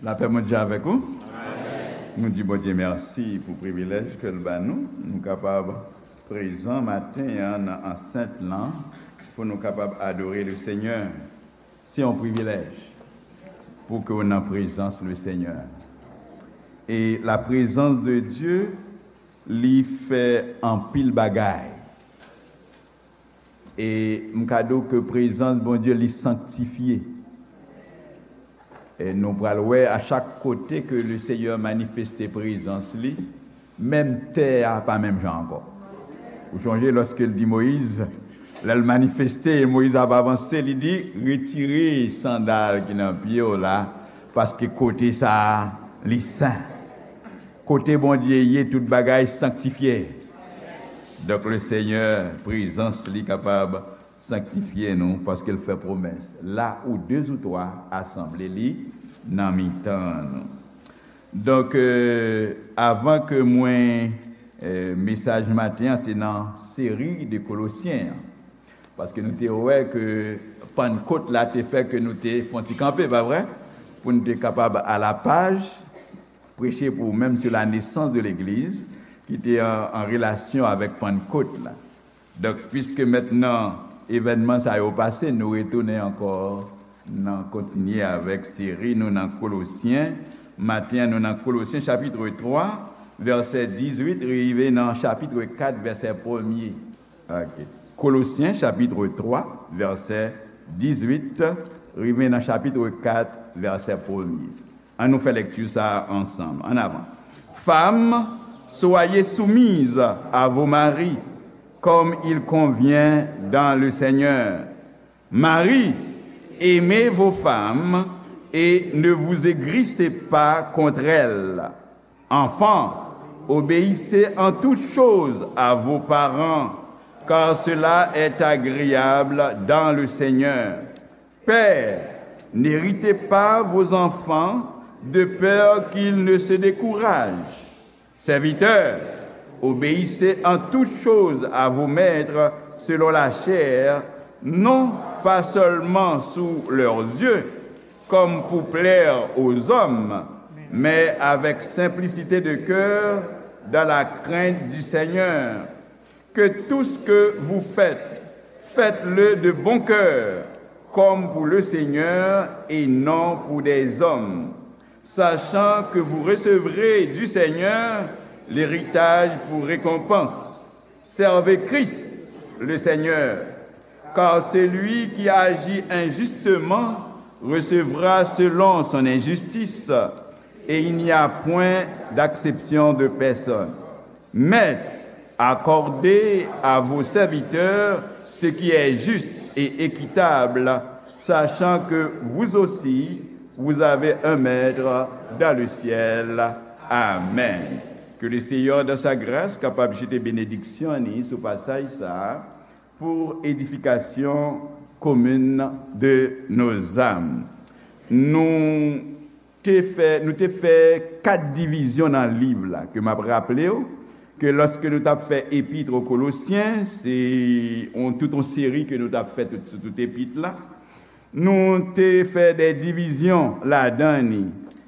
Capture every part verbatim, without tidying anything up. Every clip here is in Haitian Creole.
Lapè Bondye avèk ou. Nou di Bondye mèsi pou privilèj ke l ba nou. Nou kapab prezan maten an nan ansent lan pou nou kapab adore le Senyè. Se yon privilèj pou ke w nan prezans le Senyè. E la prezans de Dye, li fè anpil bagay. E m ka di w ke prezans Bondye li sanktifye. E nou pral wè a chak kote ke le Senyè manifeste prezans li, menm tè a pa menm jan ankò. Ou chonje lòske l di Moyiz, lè l manifeste, Moyiz ap avanse, li di, retire sandal ki nan pye w la, paske kote sa a, li sen. Kote Bondye ye, tout bagay sanktifye. Donk, le Senyè, prezans li kapab sanktifye nou, paske l fè pwomès. La où deux ou trois asanble li nan mitan nou. Donk, euh, avan ke mwen, euh, mesaj maten an, se nan seri de Kolosyen an. Paske nou te wè ke Pannkot la te fè ke nou te fè yon ti kanpe, pa vre? Pou nou te kapab a la paj, preche pou ou menm sur la naissance de l'Église, ki te an, an relasyon avèk Pannkot la. Donk, piske mentnan evènman sa yo pase, nou retounen ankò nan kontinye avèk seri nou nan Kolosyen. Maten an, nou nan Kolosyen chapit twa, vèsè dizuit, rive nan chapit kat, vèsè premye. Ok. Kolosyen chapit twa, vèsè dizuit, rive nan chapit kat, vèsè premye. An nou fè lekti sa a ansanm. An avan. Femmes, soyez soumises à vos maris, comme il convient dans le Seigneur. Maris, aimez vos femmes et ne vous aigrissez pas contre elles. Enfants, obéissez en toutes choses à vos parents, car cela est agréable dans le Seigneur. Pères, n'héritez pas vos enfants de peur qu'ils ne se découragent. Serviteurs, obéissez en toutes choses à vos maîtres selon la chair, non pas seulement sous leurs yeux, comme pour plaire aux hommes, mais avec simplicité de cœur, dans la crainte du Seigneur. Que tout ce que vous faites, faites-le de bon cœur, comme pour le Seigneur et non pour des hommes, sachant que vous recevrez du Seigneur l'héritage pour récompense. Servez Christ, le Seigneur, car celui qui agit injustement recevra selon son injustice, et il n'y a point d'acception de personne. Maîtres, accordez à vos serviteurs ce qui est juste et équitable, sachant que vous aussi, vous avez un maître dans le ciel. Amen. Que le Seigneur, dans sa grâce, capable de jeter bénédiction sou pasaj sa a, pour édification commune de nos âmes. Nou te fè, nou te fè kat divizyon nan liv la, ke m ap raple w, ke lòske nou t ap fè epit o Kolosyen, se yon, tout yon seri ke nou t ap fè tout, sou tout epit la. Nou te fè de divizyon ladan li.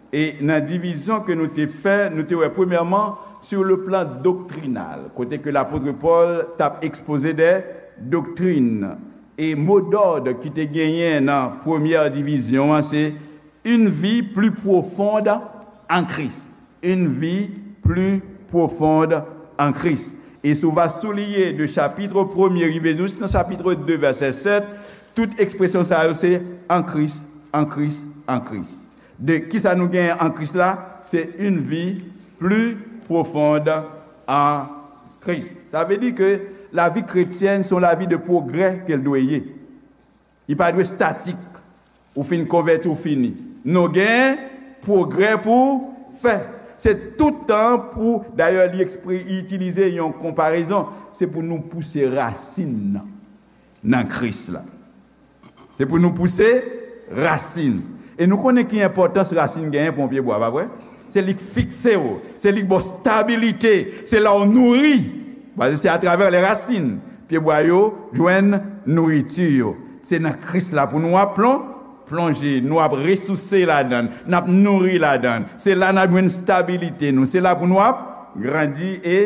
E nan divizyon ke nou te fè, nou te wè premyèman, sur le plan doctrinal, kote ke lapot Pòl t ap ekspoze de doktrin. E mo dòd ki te genyen nan premyè divizyon an, se une vie plus profonde en Christ. Une vie plus profonde en Christ. E si w va souliye de chapit premye rive jis nan chapit de, vèsè sèt, tout ekspresyon sa yo se en Christ, en Christ, en Christ. De kisa nou genyen en Christ la? Se une vie plus profonde en Christ. Sa vle di ke lavi kretyèn se yon lavi de pwogrè ke l dwe ye. Li pa dwe statik. Ou fin konvèti, ou fini. Nou gen pwogrè pou fè. Se tout tan pou, dayè, li ekspre, li itilize yon konparezon. Se pou nou pouse rasin nan, nan Kris la. Se pou nou pouse rasin. E nou konnen ki enpòtans rasin genyen pou yon pyebwa, pa vre? Se li k fikse w, se li k ba w stabilite, se la w nouri. Paske se atravè les racines pyebwa yo jwenn nouriti yo. Se nan Kris la pou nou ap plon-, plonje, nou ap resouse ladan l, n ap nouri ladan l. Se la n ap jwenn stabilite nou. Se la pou nou ap grandi e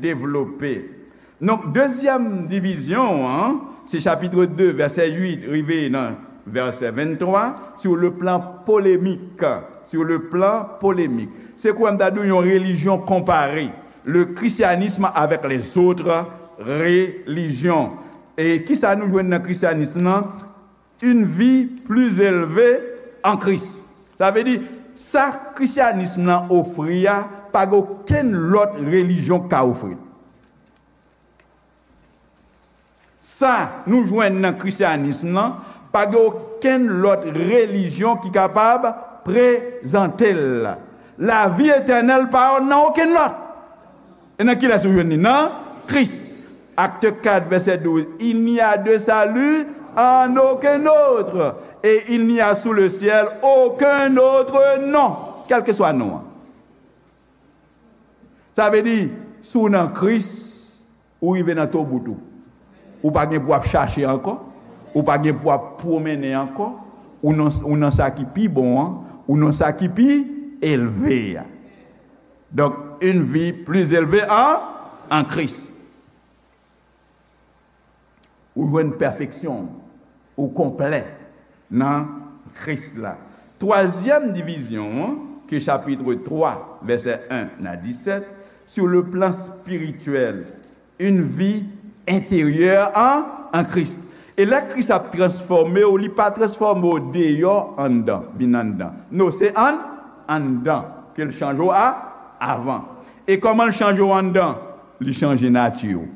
devlope. Donk, dezyèm divizyon an, se chapit de, vèsè uit, rive nan vèsè venntwa, sur le plan polémique. Sur le plan polémique. Se kouwè m ta di w yon relijyon konpare. Le christianisme avec les autres religions. E kisa nou jwenn nan krisyanism nan? Une vie plus élevée en Christ. Sa vle di, sa krisyanism nan ofri a, pa gen okenn lòt relijyon k ka ofri l. Sa nou jwenn nan krisyanism nan, pa gen okenn lòt relijyon ki kapab prezante l. Lavi etènèl pa nan okenn lòt. E nan kilès ou jwenn li? Nan Kris. Acte quatre, verset douze. Il n'y a de salut en aucun autre. Et il n'y a sous le ciel aucun autre nom. Kèlkeswa non an. Sa vle di, si w nan Kris, ou rive nan tobout ou. Ou pa gen pou ap chache ankò. Ou pa gen pou ap pwomennen ankò. Ou nan, ou nan sa ki pi bon an. Ou nan sa ki pi elve a. Donk, une vie plus élevée en, en Christ. Ou jwenn pèfeksyon, ou konplè nan Kris la. Twazyèm divizyon an, ki chapit twa, vèsè en a disèt, sur le plan spirituel, une vie intérieure en, en Christ. E lè Kris ap transfòme w, li pa transfòme w deyò anndan, vin anndan. Non, se ann, anndan ke l chanje w a, avan. E kòman l chanje w anndan? Li chanje nati w.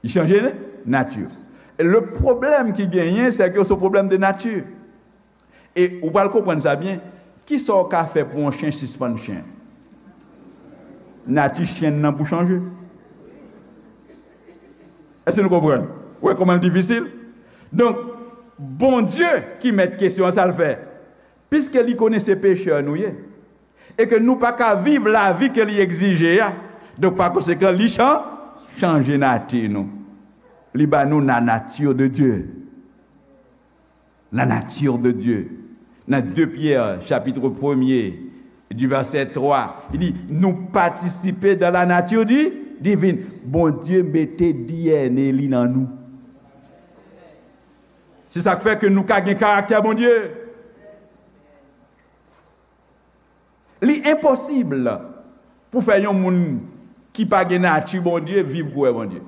Li chanje nati. Le pwoblèm ki genyen, se ke se yon pwoblèm de nati. E ou pral konprann sa byen. Kisa w ka fè pou yon chen sispann chen? Nati chen nan pou chanje. Èske nou konprann? Ou wè kòman l difisil? Donk, Bondye ki mèt kesyon an, sa l fè? Piske li konnen se pechè nou ye, e ke nou pa ka viv lavi ke li egzije a. Donk, pa konsekan, li chan-, chanje nati nou. Li ba nou la nature de Dieu. La nature de Dieu. Nan de Pyè, chapit premye, du vèsè twa, li di, nou patisipe dans la nature di-, divine. Bondye mete D N A li nan nou. Se sa k fè ke nou ka gen karaktè Bondye. Li enposib pou fè yon moun ki pa gen nati Bondye viv kouwè Bondye.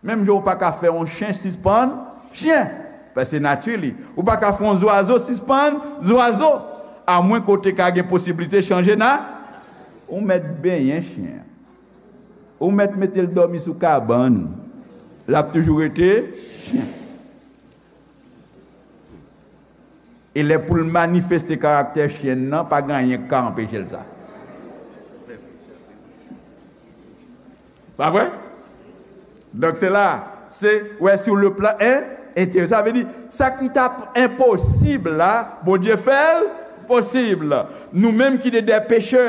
Menm jan ou pa ka fè yon chen sispann chen, paske nati li. Ou pa ka fè yon zwazo sispann zwazo, amwen kote ka gen posiblite chanje na-, ou mèt benyen chen an. Ou mèt mete l dòmi sou kabann ou. L ap toujou rete chen. E lè pou l manifeste karaktè chen nan, pa gen anyen k ka anpeche l sa. Pa vre? Donk, se la, se, wè, sur le plan en, enteryè. Sa vle di, sa ki t ap enposib la, Bondye fè l posib. Nou menm ki te de pechè,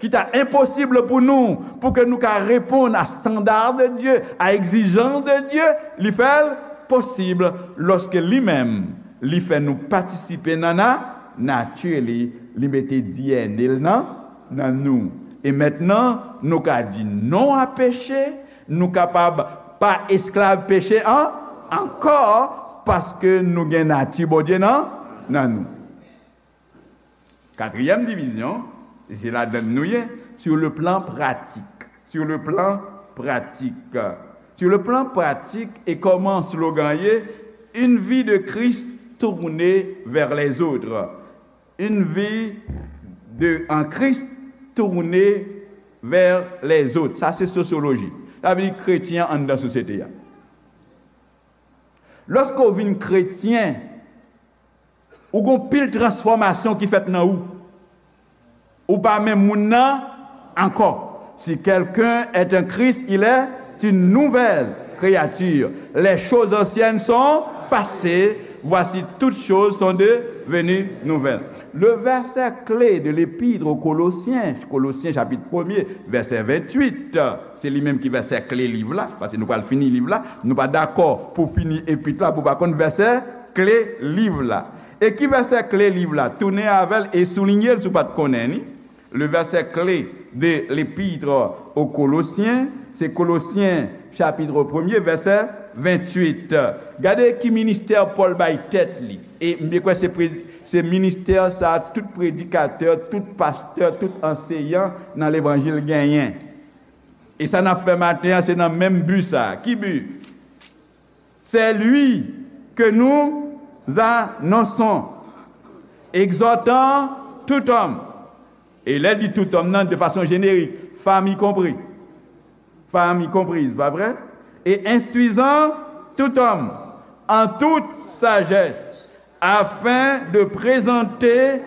ki ta enposib pou nou, pou ke nou ka reponn a standard de Dieu, a egzijans de Dieu, li fè l posib lòske li menm, li fè nou patisipe nan na-, nati li, li mete D N A l nan, nan nou. E mentnan, nou ka di non a peche, nou kapab pa esklav peche an, ankò, paske nou gen nati Bondye nan, nan nou. Katriyèm divizyon, e se ladan l nou ye, sur le plan pratique. Sur le plan pratique. Sur le plan pratique, e kòman slogan ye, une vie de Christ tournée vers les autres. Une vie de, en Christ tournée vers les autres. Sa se sosyoloji. Sa vle di kretyen anndan sosyete a. Lòske w vin kretyen, ou gon pil transfòmasyon ki fèt nan ou. Ou pa menm moun nan ankò. Si quelqu'un est en Christ, il est une nouvelle créature. Les choses anciennes sont passées, voici toutes choses sont devenues nouvelles. Le verset clé de l'épître aux Colossiens, Kolosyen chapit premye, vèsè venntuit, se li menm ki vèsè kle liv la, paske nou pral fini liv la, nou pa dakò pou fini epit la, pou pa konn vèsè kle liv la. E ki vèsè kle liv la? Tounen avè l e soulinye l si w pa t konnen li. Le verset clé de l'épître aux Colossiens, se Kolosyen chapit premye, vèsè venntuit. Gade ki ministè Pòl bay tèt li. E m byen kwè se pre-, se ministè sa a tout predikatè, tout pastè, tout anseyan nan levanjil genyen. E sa n ap fè maten an, se nan menm bi sa a. Ki bi? C'est lui que nous annonçons, exhortant tout homme. E lè l di tout homme nan, de façon générique, femme y compris. Femme y comprise, pa vre? Et instruisant tout homme en toute sagesse, afin de présenter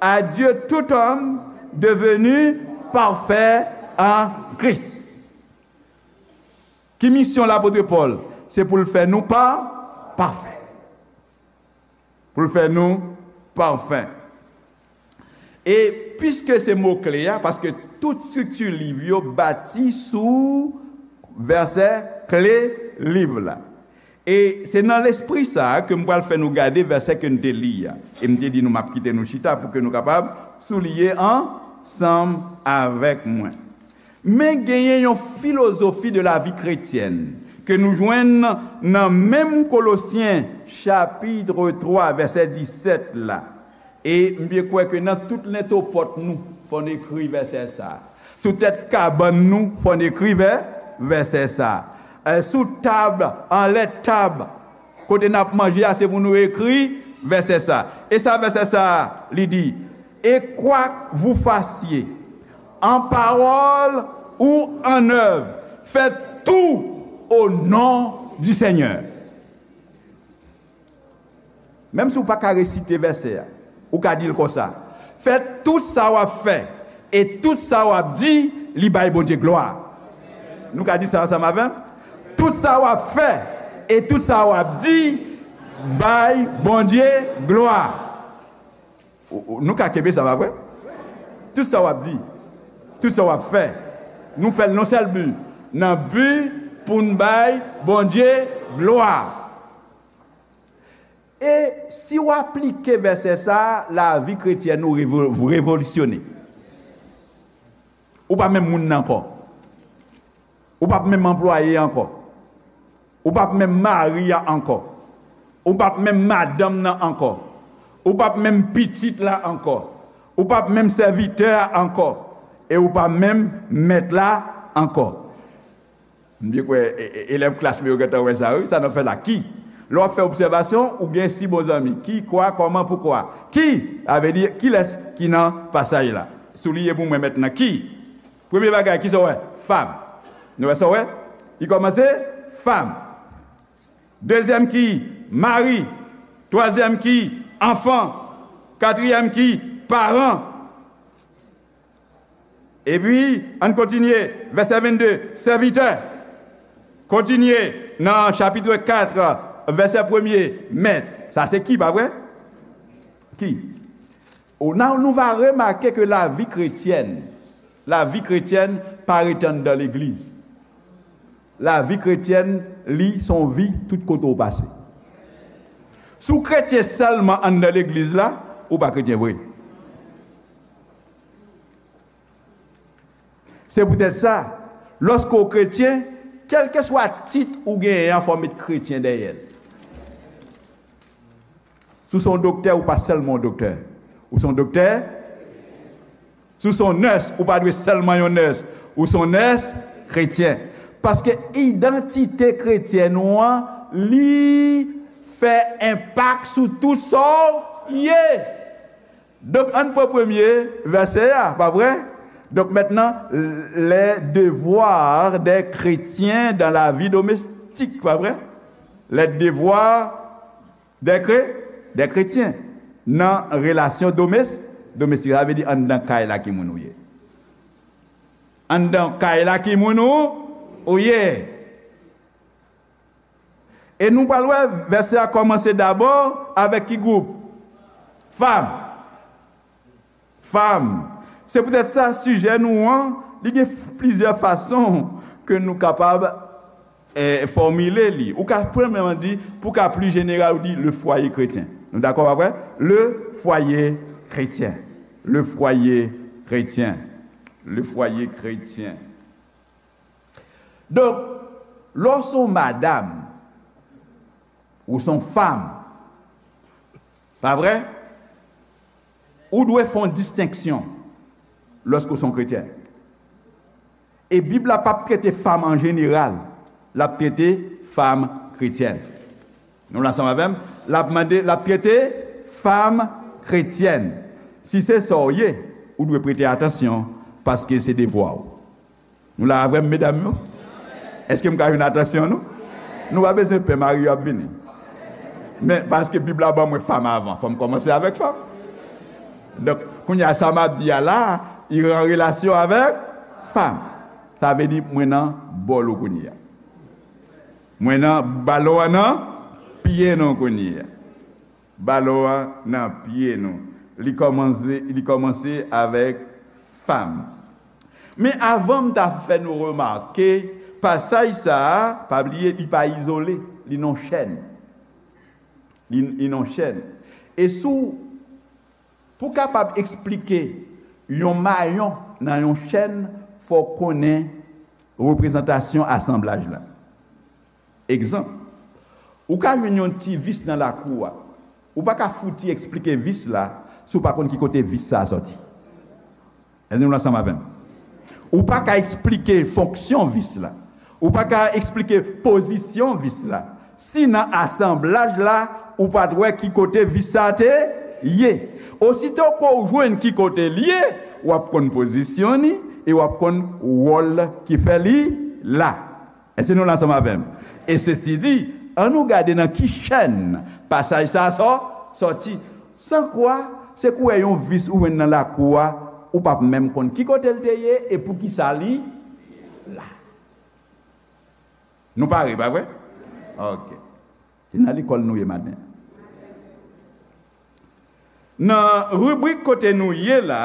à Dieu tout homme devenu parfait en Christ. Ki misyon lapot Pòl? Se pou l fè nou pa, pafè. Pou l fè nou pafè. E piske se mo kle a, paske tout estrikti liv yo bati sou vèsè kle liv la. E se nan lespri sa a ke m pral fè nou gade vèsè ke n te li a. E m te di nou m ap kite nou chita pou ke nou kapab souliye ansanm avèk mwen. Men genyen yon filozofi de la vie chrétienne ke nou jwenn nan menm Kolosyen chapit twa, vèsè disèt la. E m byen kwè ke nan tout lentopòt nou, fò n ekri vèsè sa a. Sou tèt kabann nou, fò n ekri vè-, vèsè sa a. Eh, sou tab, anlè tab, kote n ap manje a, se pou nou ekri vèsè sa a. E sa vèsè sa a, li di, et quoi que vous fassiez, en parole ou en œuvre, faites tout au nom du Seigneur. Menm si w pa ka resite vèsè a, ou ka di l konsa, fè tout sa w ap fè e tout sa w ap di, li bay Bondye glwa. Nou ka di sa ansanm avè m? Tout sa w ap fè e tout sa w ap di, bay Bondye glwa. Ou, ou, nou ka kenbe sa, pa vre? Tout sa w ap di, tout sa w ap fè, nou fè l nan sèl bi, nan bi pou n bay Bondye glwa. E si w aplike vèsè sa a, lavi kretyèn ou revo-, revolisyone. Ou pa menm moun nan ankò. Ou p ap menm anplwaye ankò. Ou p ap menm mari a ankò. Ou p ap menm madanm nan ankò. Ou p ap menm pitit la ankò. Ou p ap menm sèvitè a ankò. E ou p ap menm mèt la ankò. M byen kwè, e, e, elèv klas mwen yo gentan wè sa, wi, sa n ap fè la. Ki? Lè w ap fè obsèvasyon, ou gen sis bon zanmi. Ki, kwa, kòman, poukwa. Ki? Sa vle di, kilès ki nan pasaj la? Souliye pou mwen mentnan. Ki? Premye bagay, kisa w wè? Fam. Nou wè sa w wè? Li kòmanse, fam. Dezyèm ki? Mari. Twazyèm ki? Anfan. Katriyèm ki? Paran. Epi, ann kontinye, vèsè vennde, sèvitè. Kontinye nan chapit kat, vèsè premye, mèt. Sa se ki, pa vre? Ki? Ou, nan, nou va remake ke lavi kretyèn, lavi kretyèn pa ret anndan legliz. Lavi kretyèn, li, se yon vi tout kote w pase. Si w kretyen sèlman anndan legliz la, ou pa kretyen vre. Se poutèt sa, lòske w kretyen, kèlkeswa tit ou genyen an, fò w met kretyen dèyè l. Si w se yon doktè, ou pa sèlman yon doktè. Ou se yon doktè. Si w se yon nès, ou pa dwe sèlman yon nès. Ou se yon nès kretyen. Paske idantite kretyèn ou an, li fè enpak sou tout sa w ye. Donk, ann pran premye vèsè a, pa vre? Donk, mentnan, les devoirs des chrétiens dans la vie domestique, pa vre? Les devoirs des chré-, des chrétiens nan relasyon domès-, domestik. Sa vle di anndan kay la ki moun ou ye. Anndan kay la ki moun ou, ou ye. E nou pral wè, vèsè a kòmanse dabò avèk ki gwoup? Fam. Fam. Se poutèt sa, sijè nou an, li gen f-, plizyè fason ke nou kapab eh, fòmile li. Ou ka premyèman di, pou ka pli jeneral, ou di le foyer chrétien. Nou dakò, pa vre? Le foyer chrétien. Le foyer chrétien. Le foyer chrétien. Donk, lè w se yon madanm, ou se yon fanm, pa vre? Ou dwe fè yon distenksyon lòske w se yon kretyèn. E Bib la p ap trete fanm an jeneral, l ap trete fanm kretyèn. Nou la ansanm avè m? L ap mande, l ap trete fanm kretyèn. Si se sa w ye, ou dwe prete atansyon, paske se devwa w. Nou la avè m, medam yo? Èske m ka jwenn atansyon nou? Nou pa bezwen pè, mari yo ap vini. Men, paske Bib la ban mwen fanm avan, fò m kòmanse avèk fanm. Donk, kounye a, sa m ap di a la, li an relasyon avèk fanm. Sa vle di, mwen nan bòl ou kounye a. Mwen nan balon an nan pye nou kounye a. Balon an nan pye nou. Li kòmanse, li kòmanse avèk fanm. Men avan m ta fè nou remake, pasaj sa a, pa bliye, li pa izole, li nan chèn. Li, li nan chèn. E sou, pou kapab eksplike yon mayon nan yon chèn, fò w konnen reprezantasyon asanblaj la. Egzanp, ou ka jwenn yon ti vis nan lakou a. Ou pa ka fouti eksplike vis la si w pa konn ki kote vis sa a sòti. Èske nou ansanm avè m? Ou pa ka eksplike fonksyon vis la. Ou pa ka eksplike pozisyon vis la si nan asanblaj la, ou pa t wè ki kote vis sa a te ye. Osito ke w jwenn ki kote l ye, w ap konn pozisyon li e w ap konn wòl ki fè li la. Èske nou la ansanm avè m? E sesi di, ann nou gade nan ki chèn pasaj sa a sò-, sòti. San kwa, se kou w wè yon vis ou jwenn nan lakou a, ou p ap menm konn ki kote l te ye e poukisa li la. Nou pare, pa vre? Ok. Se nan lekòl nou ye maten. Nan ribrik kote nou ye la,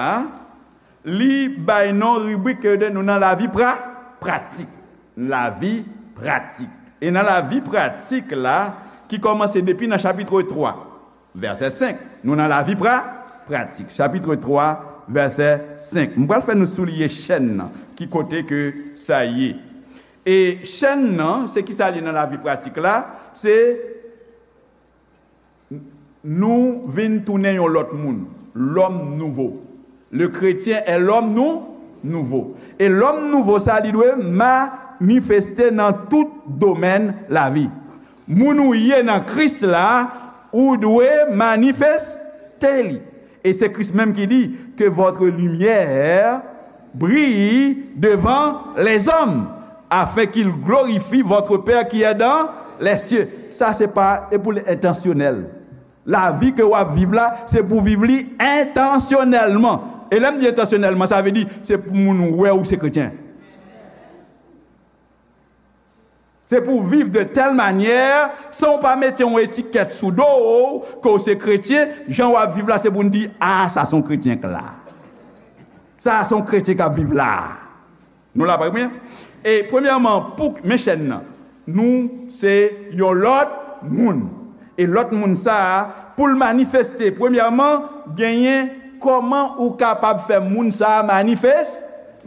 li bay non ribrik ke nou nan lavi pra-, pratik. Lavi pratik. E nan lavi pratik la, ki kòmanse depi nan chapit twa, vèsè senk, nou nan lavi pra-, pratik. Chapit twa, vèsè senk. M pral fè nou souliye chèn nan, ki kote ke sa ye. E chèn nan, se ki sa li nan lavi pratik la? Se nou vin tounen yon lòt moun, l'homme nouveau. Le chrétien est l'homme nou, nouveau. E l'homme nouveau sa, li dwe manifeste nan tout domèn lavi. Moun ou ye nan Kris la, ou dwe manifeste li. E se Kris menm ki di, que votre lumière brille devant les hommes, afin qu'ils glorifient votre Père qui est dans les cieux. Sa se pa, e pou l entansyonèl. Lavi ke w ap viv la, se pou viv li entansyonèlman. E lè m di entansyonèlman, sa vle di, se pou moun wè ou se kretyen. Se pou w viv de tèl manyè, san w pa mete yon etikèt sou do w, ke w se kretyen, jan w ap viv la, se pou n di, a, sa se yon kretyen k la. Sa se yon kretyen k ap viv la. Nou la, pa byen? E premyèman, pou, men chèn nan, nou se yon lòt moun. E lòt moun sa a, pou l manifeste, premyèman, genyen kòman ou kapab fè moun sa a manifes-,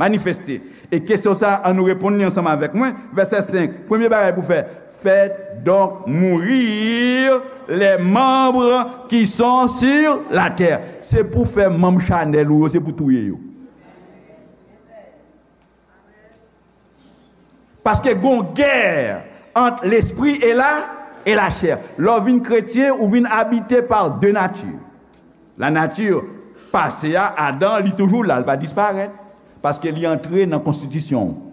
manifeste. E kesyon sa a, ann nou reponn li ansanm avèk mwen. Vèsè senk, premye bagay pou fè, faites donc mourir les membres qui sont sur la terre. Se pou fè manm chanèl ou yo, se pou touye yo. Paske gon gè ant lespri e la, e la chè. Lè w vin kretyen, ou vin abite pa de nati. La nati pase a, Adan, li toujou la, li pa disparèt. Paske li antre nan konstitisyon w.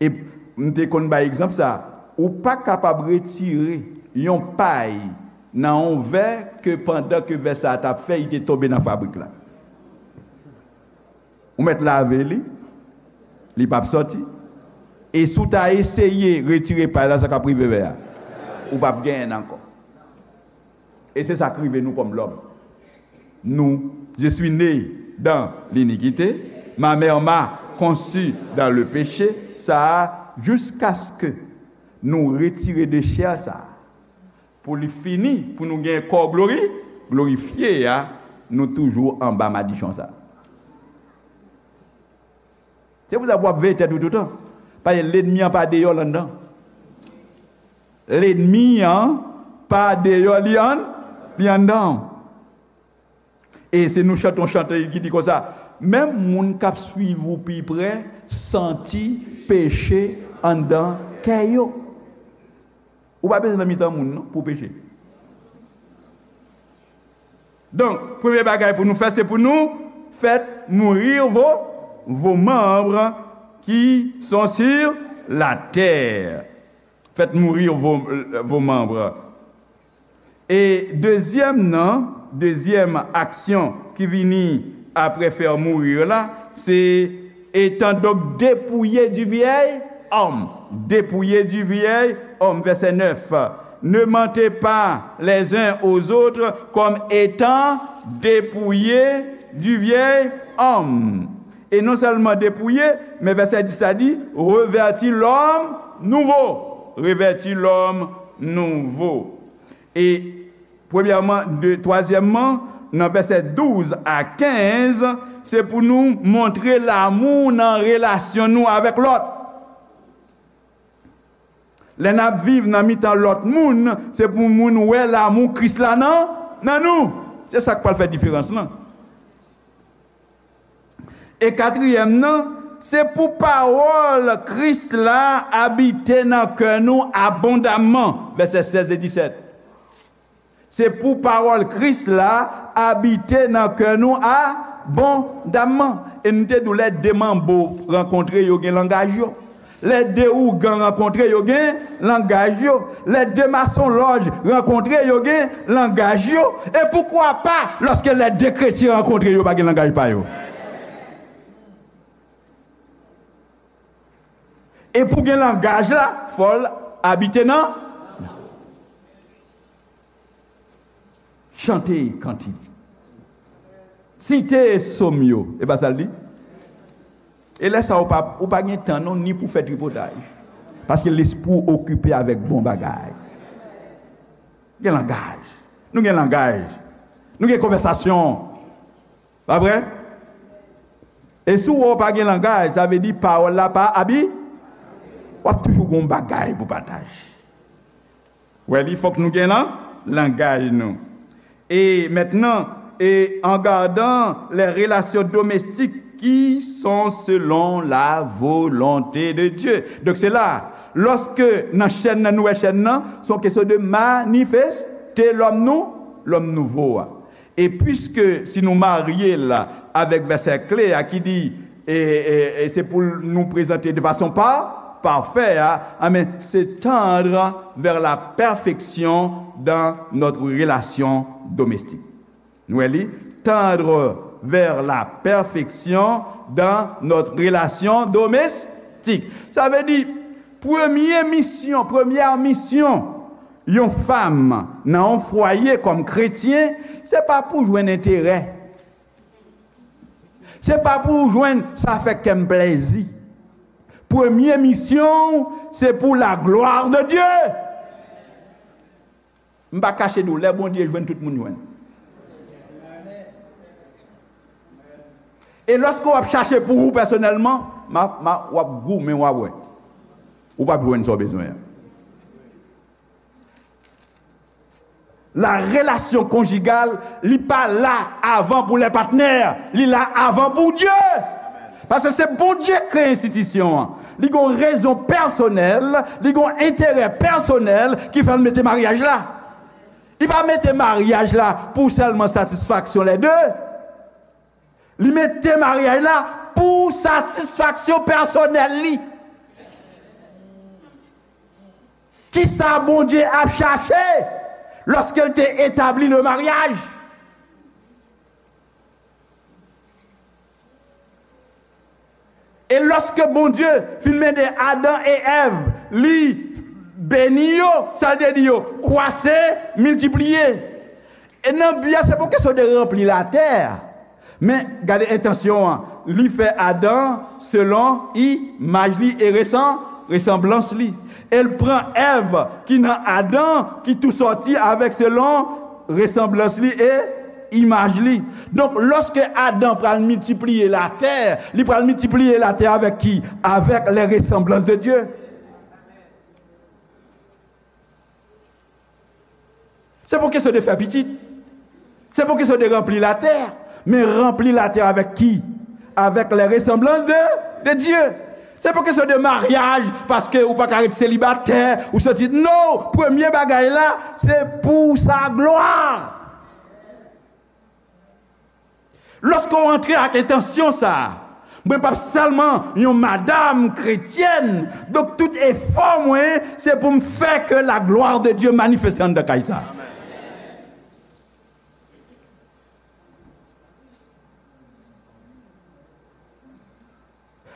E m te konn bay egzanp sa, ou pa kapab retire yon pay nan yon vè ke pandan ke vè sa a t ap fè, li te tonbe nan fabrik la. Ou mèt lave li, li p ap sòti. E si w ta eseye retire pay la, sa k ap rive vè a? Ou p ap genyen l ankò. E se sa k rive nou kòm lòm. Nou, je suis né dans l'iniquité, ma mère m'a conçu dans le péché, sa a, jiskaske Nou retire de chè sa a, pou li fini, pou nou gen kò glori, glorifye a, nou toujou anba madichon sa a. Se pou sa pou w ap veye tèt ou toutan. Paske lènmi an pa deyò, l anndan. Lènmi an pa deyò, li ann, li anndan. E se nou chante yon chante ki di konsa, menm moun k ap swiv ou pi prè santi peche anndan kè yo. Ou pa bezwen nan mitan moun non pou peche. Donk, premye bagay pou nou fè, se pou nou faites mourir vos, vos membres qui sont sur la terre. Faites mourir vos, vos membres. E dezyèm nan, dezyèm aksyon ki vini apre faire mourir la, se étant donc dépouillés du vieil homme. Dépouillés du vieil homme, verset neuf. Ne mentez pas les uns aux autres comme étant dépouillés du vieil homme. E non sèlman dépouillé, men vèsè dis la di, revêtez l'homme nouveau. Revêtez l'homme nouveau. E premyèman, de, twazyèmman, nan vèsè douz a kenz, se pou nou montre lanmou nan relasyon nou avèk lòt. Lè n ap viv nan mitan lòt moun, se pou moun wè lanmou Kris la nan, nan nou. Se sa k pral fè diferans lan. E katriyèm nan, se pou pawòl Kris la abite nan kè nou abondamman, vèsè sèz e disèt. Se pou pawòl Kris la abite nan kè nou abondamman. E nou te di w lè de manbo rankontre, yo gen langaj yo. Lè de ougan rankontre, yo gen langaj yo. Lè de masonlòj rankontre, yo gen langaj yo. E poukwa pa, lòske lè de kretyen rankontre, yo pa gen langaj pa yo? E pou gen langaj la, fò l abite nan. Chante kantik. Site sòm yo. E pa sa l di? E lè sa a, ou pa, ou pa gen tan non, ni pou fè tripotay. Paske lespri w okipe avèk bon bagay. Gen langaj. Nou gen langaj. Nou gen konvèsasyon. Pa vre? E si w wè w pa gen langaj, sa vle di pawòl la pa abi-, w ap toujou gen yon bagay pou pataje. Wè li, fòk nou gen lan-, langaj nou. E mentnan, e en gardant les relations domestiques qui sont selon la volonté de Dieu. Donk se la, lòske nan chèn nan, nou wè chèn nan, se yon kesyon de manifeste lòm nou, lòm nouvo a. E piske si nou marye l avèk vèsè kle a ki di, e, e, e se pou nou prezante de fason pa, parfè a, amen, se tendre vers la perfection dans notre relation domestique. Nou wè li, tendre vers la perfection dans notre relation domestique. Sa vle di, premye misyon, premyè misyon yon fanm nan yon fwaye kòm kretyen, se pa pou jwenn enterè. Se pa pou jwenn sa fè kè m plèzi. Premye misyon w, se pou la gloire de Dieu. M pa kache di w, lè Bondye jwenn, tout moun jwenn. E lòske w ap chache pou ou pèsonèlman, ma, ma, w ap goumen, w a wè. Ou p ap jwenn sa w bezwen an. La relation conjugale, li pa la avan pou lè patnè, li la avan pou Dye. Paske se Bondye k kreye enstitisyon an. Li gon rezon pèsonèl, li gon enterè pèsonèl ki fè l mete maryaj la. Li pa mete maryaj la pou sèlman satisfaksyon lè de. Li mete maryaj la pou satisfaksyon pèsonèl li. Kisa Bondye ap chache lòske l te etabli le maryaj? E lòske Bondye fin mete Adan e Èv, li beni yo, sa l te di yo, kwase, miltipliye. E nan bi a, se pa kesyon de ranpli latè. Men, gade entansyon an. Li fè Adan selon imaj li e resanblans. resanblans li. E l pran Èv ki nan Adan, ki tou sòti avèk selon resanblans li e imaj li. Donk, lòske Adan pral miltipliye latè, li pral miltipliye latè avèk ki? Avèk les ressemblances de Dieu. Se pa kesyon de fè pitit. Se pa kesyon de ranpli latè. Men ranpli latè avèk ki? Avèk les ressemblances de, de Dieu. Se pa kesyon de maryaj, paske ou pa ka ret selibatè, ou soti. Non, premye bagay la, se pou sa glwa. Lòske w antre ak entansyon sa a, mwen p ap sèlman yon madanm kretyèn, donk tout efò mwen, se pou m fè ke la gloire de Dieu manifeste anndan kay sa a.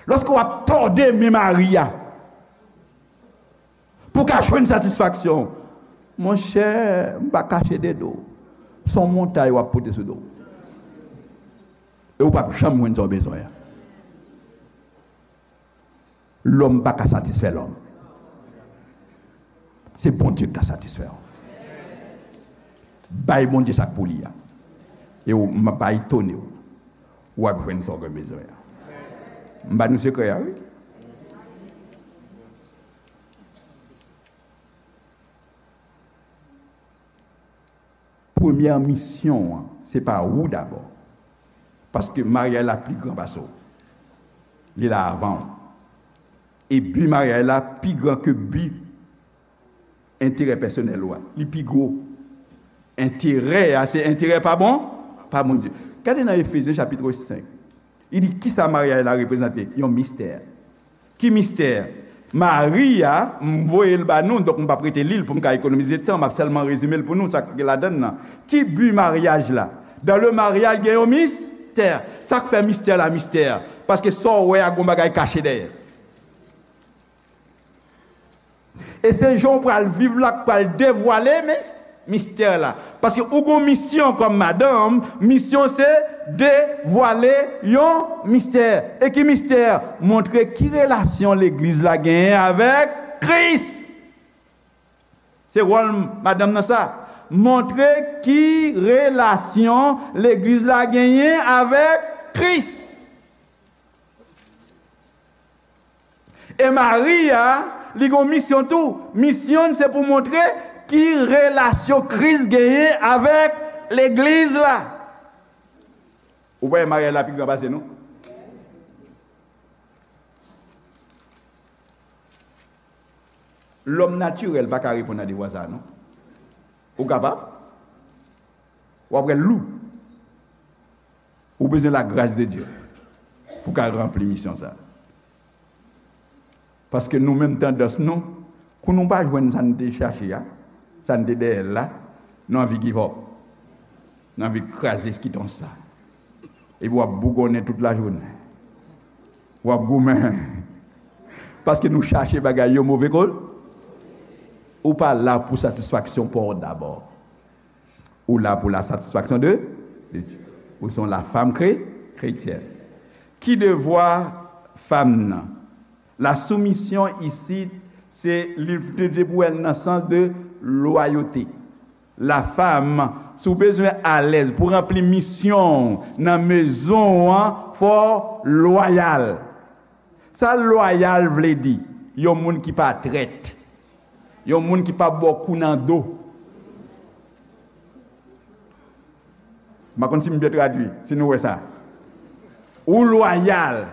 Lòske w ap tòde men mari a, pou w ka jwenn satisfaksyon. Monchè, m pa kache de do w. Se yon montay w ap pote sou do w. E w p ap janm jwenn sa w bezwen an. Lòm pa ka satisfè lòm. Se Bondye ki ka satisfè w. Bay Bondye sa k pou li a. E w, m pa etone w. W ap jwenn sa w gen bezwen an. M ba nou sekrè a, wi. Premyè misyon an, se pa ou dabò. Paske maryaj la pi gran pase w. Li la avan w. E bi maryaj la pi gran ke bi enterè pèsonèl ou a. Li pi gwo. Enterè a, se enterè pa bon, pa Bondye. Gade nan Efezyen chapit senk. Li di, kisa maryaj la reprezante? Yon mistè. Ki mistè? Mari a, m voye l ba nou, donk m p ap rete li l pou m ka ekonomize tan, m ap sèlman rezime l pou nou, sa k gen ladan l nan. Ki bi maryaj la? Dan le maryaj, gen yon mistè. Sa k fè mistè la mistè? Paske sa w wè a, gon bagay kache dèyè. E se jan w pral viv la k pral devwale, men, mistè la. Paske ou gon misyon kòm madanm, misyon se devwale yon mistè. E ki mistè? Montre ki relasyon legliz la genyen avèk Kris. Se wòl madanm nan sa. Montre ki relasyon legliz la genyen avèk Kris. E mari a, li gon misyon tou. Misyon l se pou montre ki relasyon Kris genyen avèk legliz la. Ou pa wè maryaj la pi gran pase nou? Lòm natirèl pa ka reponn a devwa sa a, non. Ou kapab? W ap wè l lou. Ou bezwen lagras de Dye pou w ka ranpli misyon sa a. Paske nou menm tandans nou, kou nou pa jwenn sa n te chache a, sa n te dèyè l la, nou anvi give up. Nou anvi kraze skitons sa. Epi w ap bougonnen tout lajounen. W ap goumen. Paske nou chache bagay yo move kote. Ou pa la pou satisfaksyon pa w dabò. Ou la pou la satisfaction de, de Dieu. Ou se yon la femme chré, chrétienne. Ki devwa fanm nan? La soumission ici, se li te pou wè l nan sans de loyauté. La femme, si w bezwen alèz pou ranpli misyon w nan mezon w an, fò w lwayal. Sa lwayal vle di? Yon moun ki pa trèt. Yon moun ki pa ba w kou nan do. M pa konn si m byen tradui, si nou wè sa. Ou lwayal.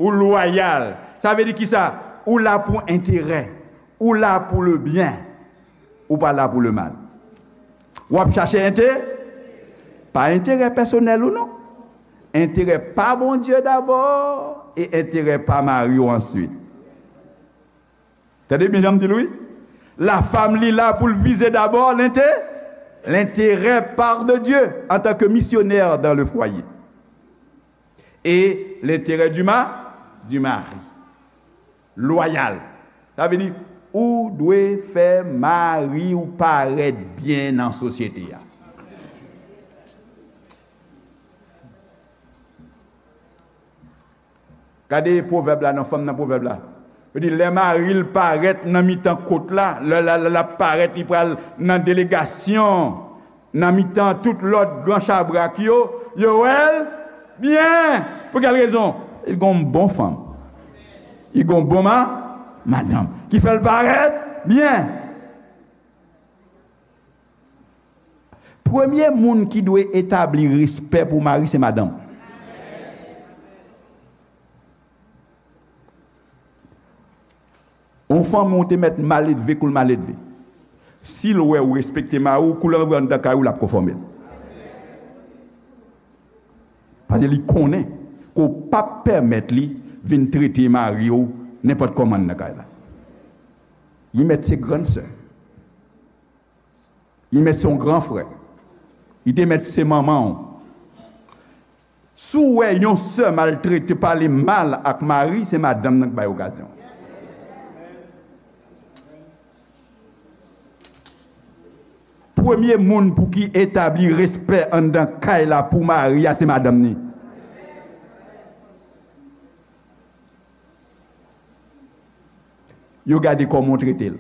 Ou lwayal. Sa vle di kisa? Ou la pou enterè. Ou la pou le byen. Ou pa la pou le mal. W ap chache ente-, pa enterè pèsonèl ou non. Enterè pa Bondye dabò e enterè pa mari w answit. Tande byen jan m di l wi. La femme li la pou l vize dabò lente-, l'intérêt par de Dieu en tant que missionnaire dans le foyer. Et l'intérêt du ma-, du mari. Lwayal. Sa vle di, ou dwe fè mari w parèt byen nan sosyete a. Gade pwovèb la, nan fanm nan pwovèb la. Yo di, lè mari l parèt nan mitan kot la, lè l ap parèt, li pral nan delegasyon, nan mitan tout lòt gran chabrak yo, yo wè l byen. Pou kèl rezon? Li gon bon fanm. Li gon bon ma, madanm. Ki fè l parèt byen. Premye moun ki dwe etabli respè pou mari, se madanm. Yon fanmi w te mèt maledve kou l maledve. Si l wè ou respekte mari w, kou l antre anndan kay ou, l ap konfòme l. Paske li konnen ke w p ap pèmèt li vin trete mari w nenpòt kòman anndan kay la. Li mèt se grann sè. Li mèt se yon gran frè. Li te mèt se manman w. Si w wè yon sè maltrete, pale mal ak mari, se madanm nan k bay okazyon. Premye moun pou ki etabli respè anndan kay la pou mari a, se madanm ni. Yo gade kòman w trete l,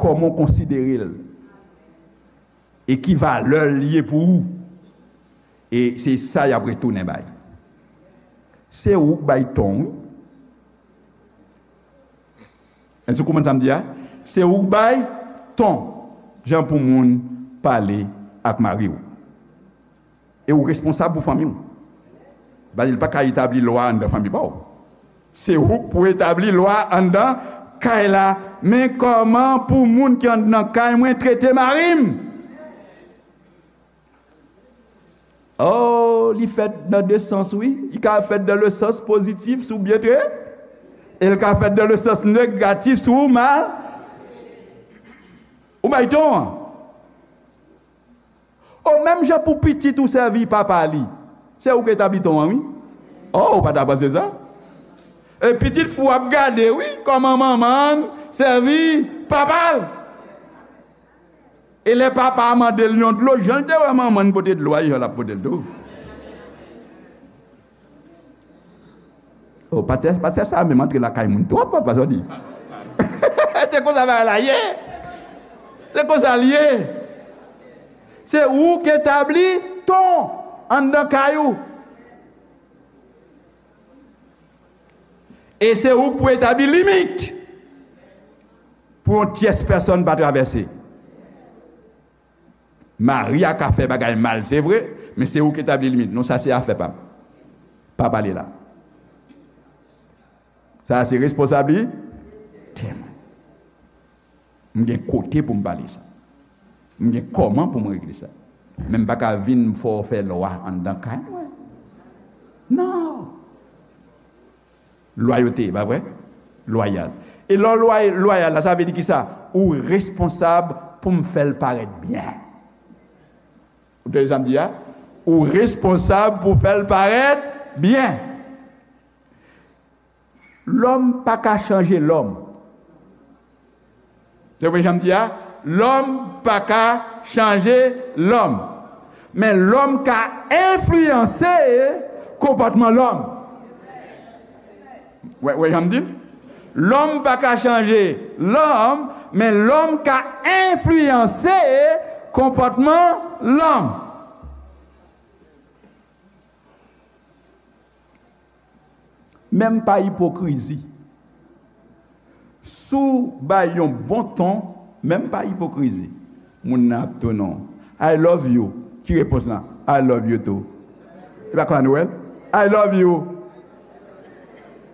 kòman w konsidere l, e ki valè l ye pou ou. E se sa y ap retounen bay. Se ou k bay ton, wi. Èske w konprann sa m di a? Se ou k bay ton, jan pou moun pale ak mari w. E ou responsab pou fanmi w. Paske l pa ka etabli lwa anndan fanmi pa w. Se ou k pou etabli lwa anndan kay la. Men kòman pou moun ki anndan kay mwen trete mari m? Oh, li fèt nan de sans, wi. Li ka fèt dans le sens positif, si w byen trete. E l ka fèt dans le sens négatif, si w mal. Ou bay ton an. O, menm jan pou pitit ou sèvi papa li, se ou k etabli ton an, wi. O, ou pa ta panse sa? E pitit fi w ap gade, wi, kòman manman l sèvi papa l. E lè papa a mande l yon dlo, jan l te wè manman l pote dlo a, e jan l ap pote l tou. O, pastè, pastè sa a menm antre lakay moun twòp, papa, sa w di. Se konsa bagay la ye. Se konsa l ye. Se ou k etabli ton anndan kay ou. E se ou k pou etabli limit pou yon tyès pèsòn pa travèse. Mari a ka fè bagay mal, se vre, men se ou k etabli limit. Non, sa se afè pa m. Pa pale la. Sa se responsablite mwen. M gen kote pou m pale sa. M gen kòman pou m regle sa. Men m pa ka vin fè w fè lwa anndan kay mwen. Non. Lwayote, pa vre? Lwayal. E lè w lway-, lwayal la, sa vle di kisa? Ou responsab pou m fè l parèt byen. Ou tande sa m di a? Ou responsab pou fè l parèt byen. Lòm pa ka chanje lòm. Se vre jan m di a? Lòm pa ka chanje lòm. Men lòm ka enfliyanse konpòtman lòm. Wè, wè jan m di l? Lòm pa ka chanje lòm, men lòm ka enfliyanse konpòtman lòm. Menm pa ipokrizi. Si w bay yon bon ton, menm pa ipokrizi, moun nan ap tounen w. "I love you." Ki repons lan? "I love you too." E pa konsa nou wè l? "I love you."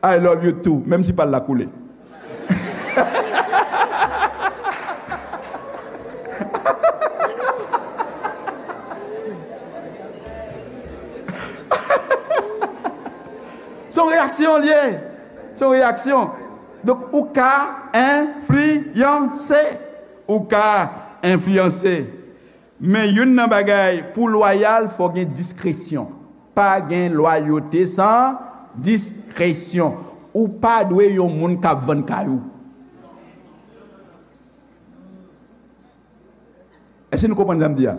"I love you too," menm si pa l la koule. Se yon reyaksyon l ye. Se yon reyaksyon. Donk, ou ka enfliyanse. Ou ka enfliyanse. Men youn nan bagay, pou lwayal, fò gen diskresyon. Pa gen lwayote san diskresyon. Ou pa dwe yon moun k ap vann kay ou. Èske nou konprann sa m di a?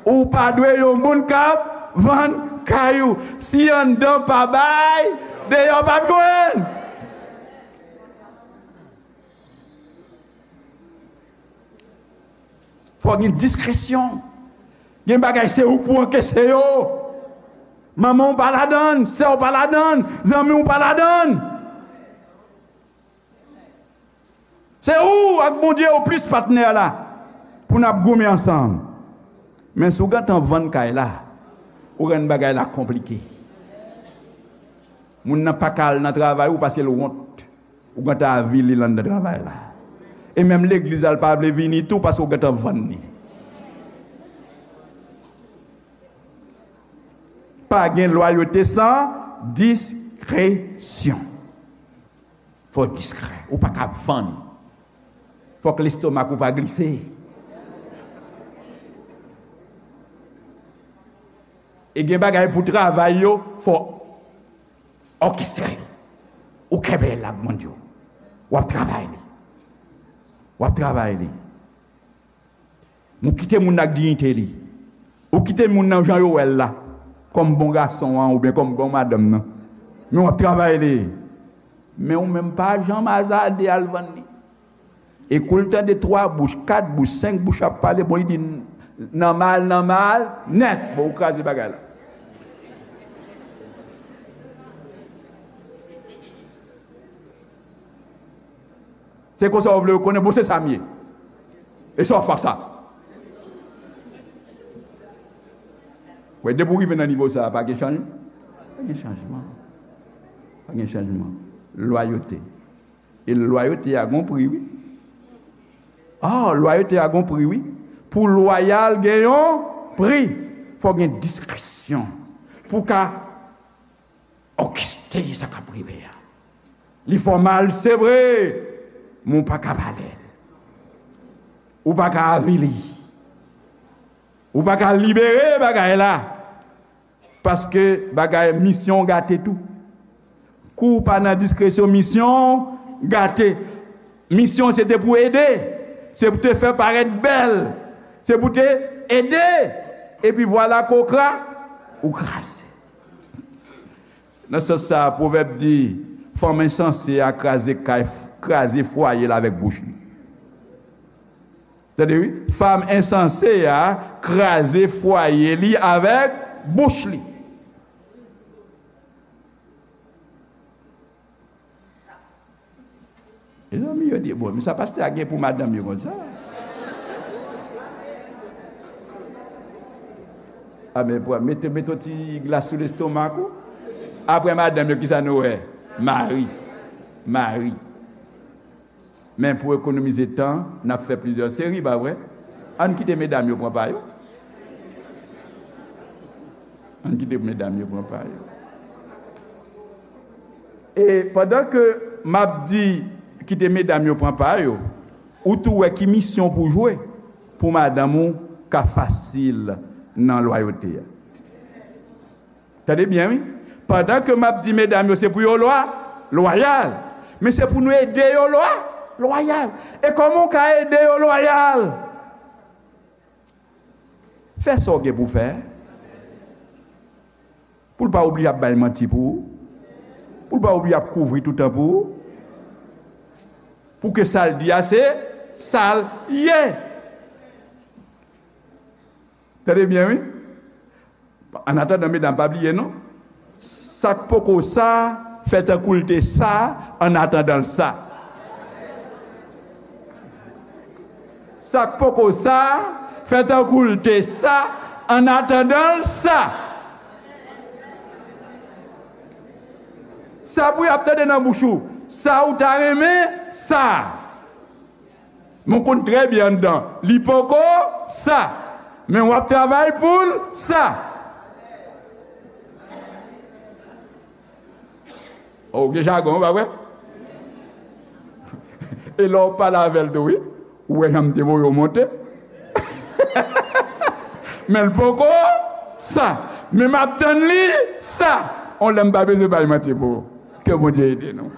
Ou pa dwe yon moun k ap vann kay ou. Si anndan pa bay, deyò p ap jwenn. Fò gen diskresyon. Gen bagay se ou pou ancaisse yo. Manman w pa ladann, sè w pa ladann, zanmi w pa ladann. Se ou ak Bondye ou plis patnè la pou n ap goumen ansanm. Men si w gentan vann kay la, ou rann bagay la konplike. Moun nan pa ka al nan travay ou pase l wont. Ou gentan avili l anndan travay la. E menm legliz la, l pa vle vini tou paske w gentan vann li. Pa gen lwayote san diskresyon. Fò w diskrè. Ou pa ka vann. Fòk lestomak ou pa glise. E gen bagay pou travay yo, fò òkestre. Ou kenbe l ak Bondye. W ap travay li. W ap travay li. Ou kite moun nan ak diyite li. Ou kite moun nan jan yo wè l la. Kòm bon gason an oubyen kòm bon madanm nan. Men w ap travay li. Men ou menm pa janm azade al vann li. E kou l tande twa bouch, kat bouch, senk bouch ap pale, bon, li di, "Nan mal, nan mal, nèt." Bon, ou kraze bagay la. Se konsa w vle yo konnen, bon, se sa m ye. E sa w fè ak sa? Wè, depi w rive nan nivo sa a, pa gen chanjman. Pa gen chanjman. Pa gen chanjman. Lwayote. E lwayote a gon pri, wi. Ah, lwayote a gon pri, wi. Pou lwayal gen yon pri. Fò gen diskresyon. Pou ka òkestre sa k ap rive a. Li fè w mal, se vre, men w pa ka pale l. Ou pa ka avili. Ou pa ka libere bagay la. Paske bagay misyon w gate tou. Kou w pa nan diskresyon, misyon w gate. Misyon w se te pou ede. Se pou te fè parèt bèl. Se pou te ede. Epi vwala kokra, ou kraze. Nan sans sa a, pwovèb di, fanm ensanse a kraze kay, kraze fwaye l avèk bouch li. Tande wi, fanm ensanse a kraze fwaye li avèk bouch li. Mezanmi, yo di, bon, men sa pastè a gen pou madanm yo konsa. A, men pran, mete, mete yon ti glas sou lestomak ou. Apre madanm yo, kisa nou wè? Mari. Mari. Men pou ekonomize tan, n ap fè plizyè seri, pa vre? Ann kite medam yo pran pa yo. Ann kite medam yo pran pa yo. E pandan ke m ap di kite medam yo pran pa yo, ou tou wè ki misyon pou jwe pou madanm ou ka fasil nan lwayote a. Tande byen, wi. Pandan ke m ap di medam yo se pou yo lwa, lwayal, men se pou nou ede yo lwa, lwayal. E kòman w ka ede yo lwayal? Fè sa w gen pou fè. Pou l pa oblije ap bay manti pou ou. Pou l pa oblije ap kouvri toutan pou ou. Pou ke sa l di a se sa l ye. Tande byen, wi. Annatandan, medam, pa bliye non. Sa k poko sa, fè tankou l te sa, annatandan l sa. Sa k poko sa, fè tankou l te sa, annatandan l sa. Sa pou y ap tande nan bouch ou, sa ou ta renmen, sa. Men w konn trè byen anndan, li poko sa. Men w ap travay pou l sa. O, gen jagon, pa vre? E lè w pale avè l tou, wi. Ou wè jan m te voye w monte. Men l poko sa. Men m ap tann li sa. On lè m pa bezwen bay manti pou ou. Ke Bondye ede nou.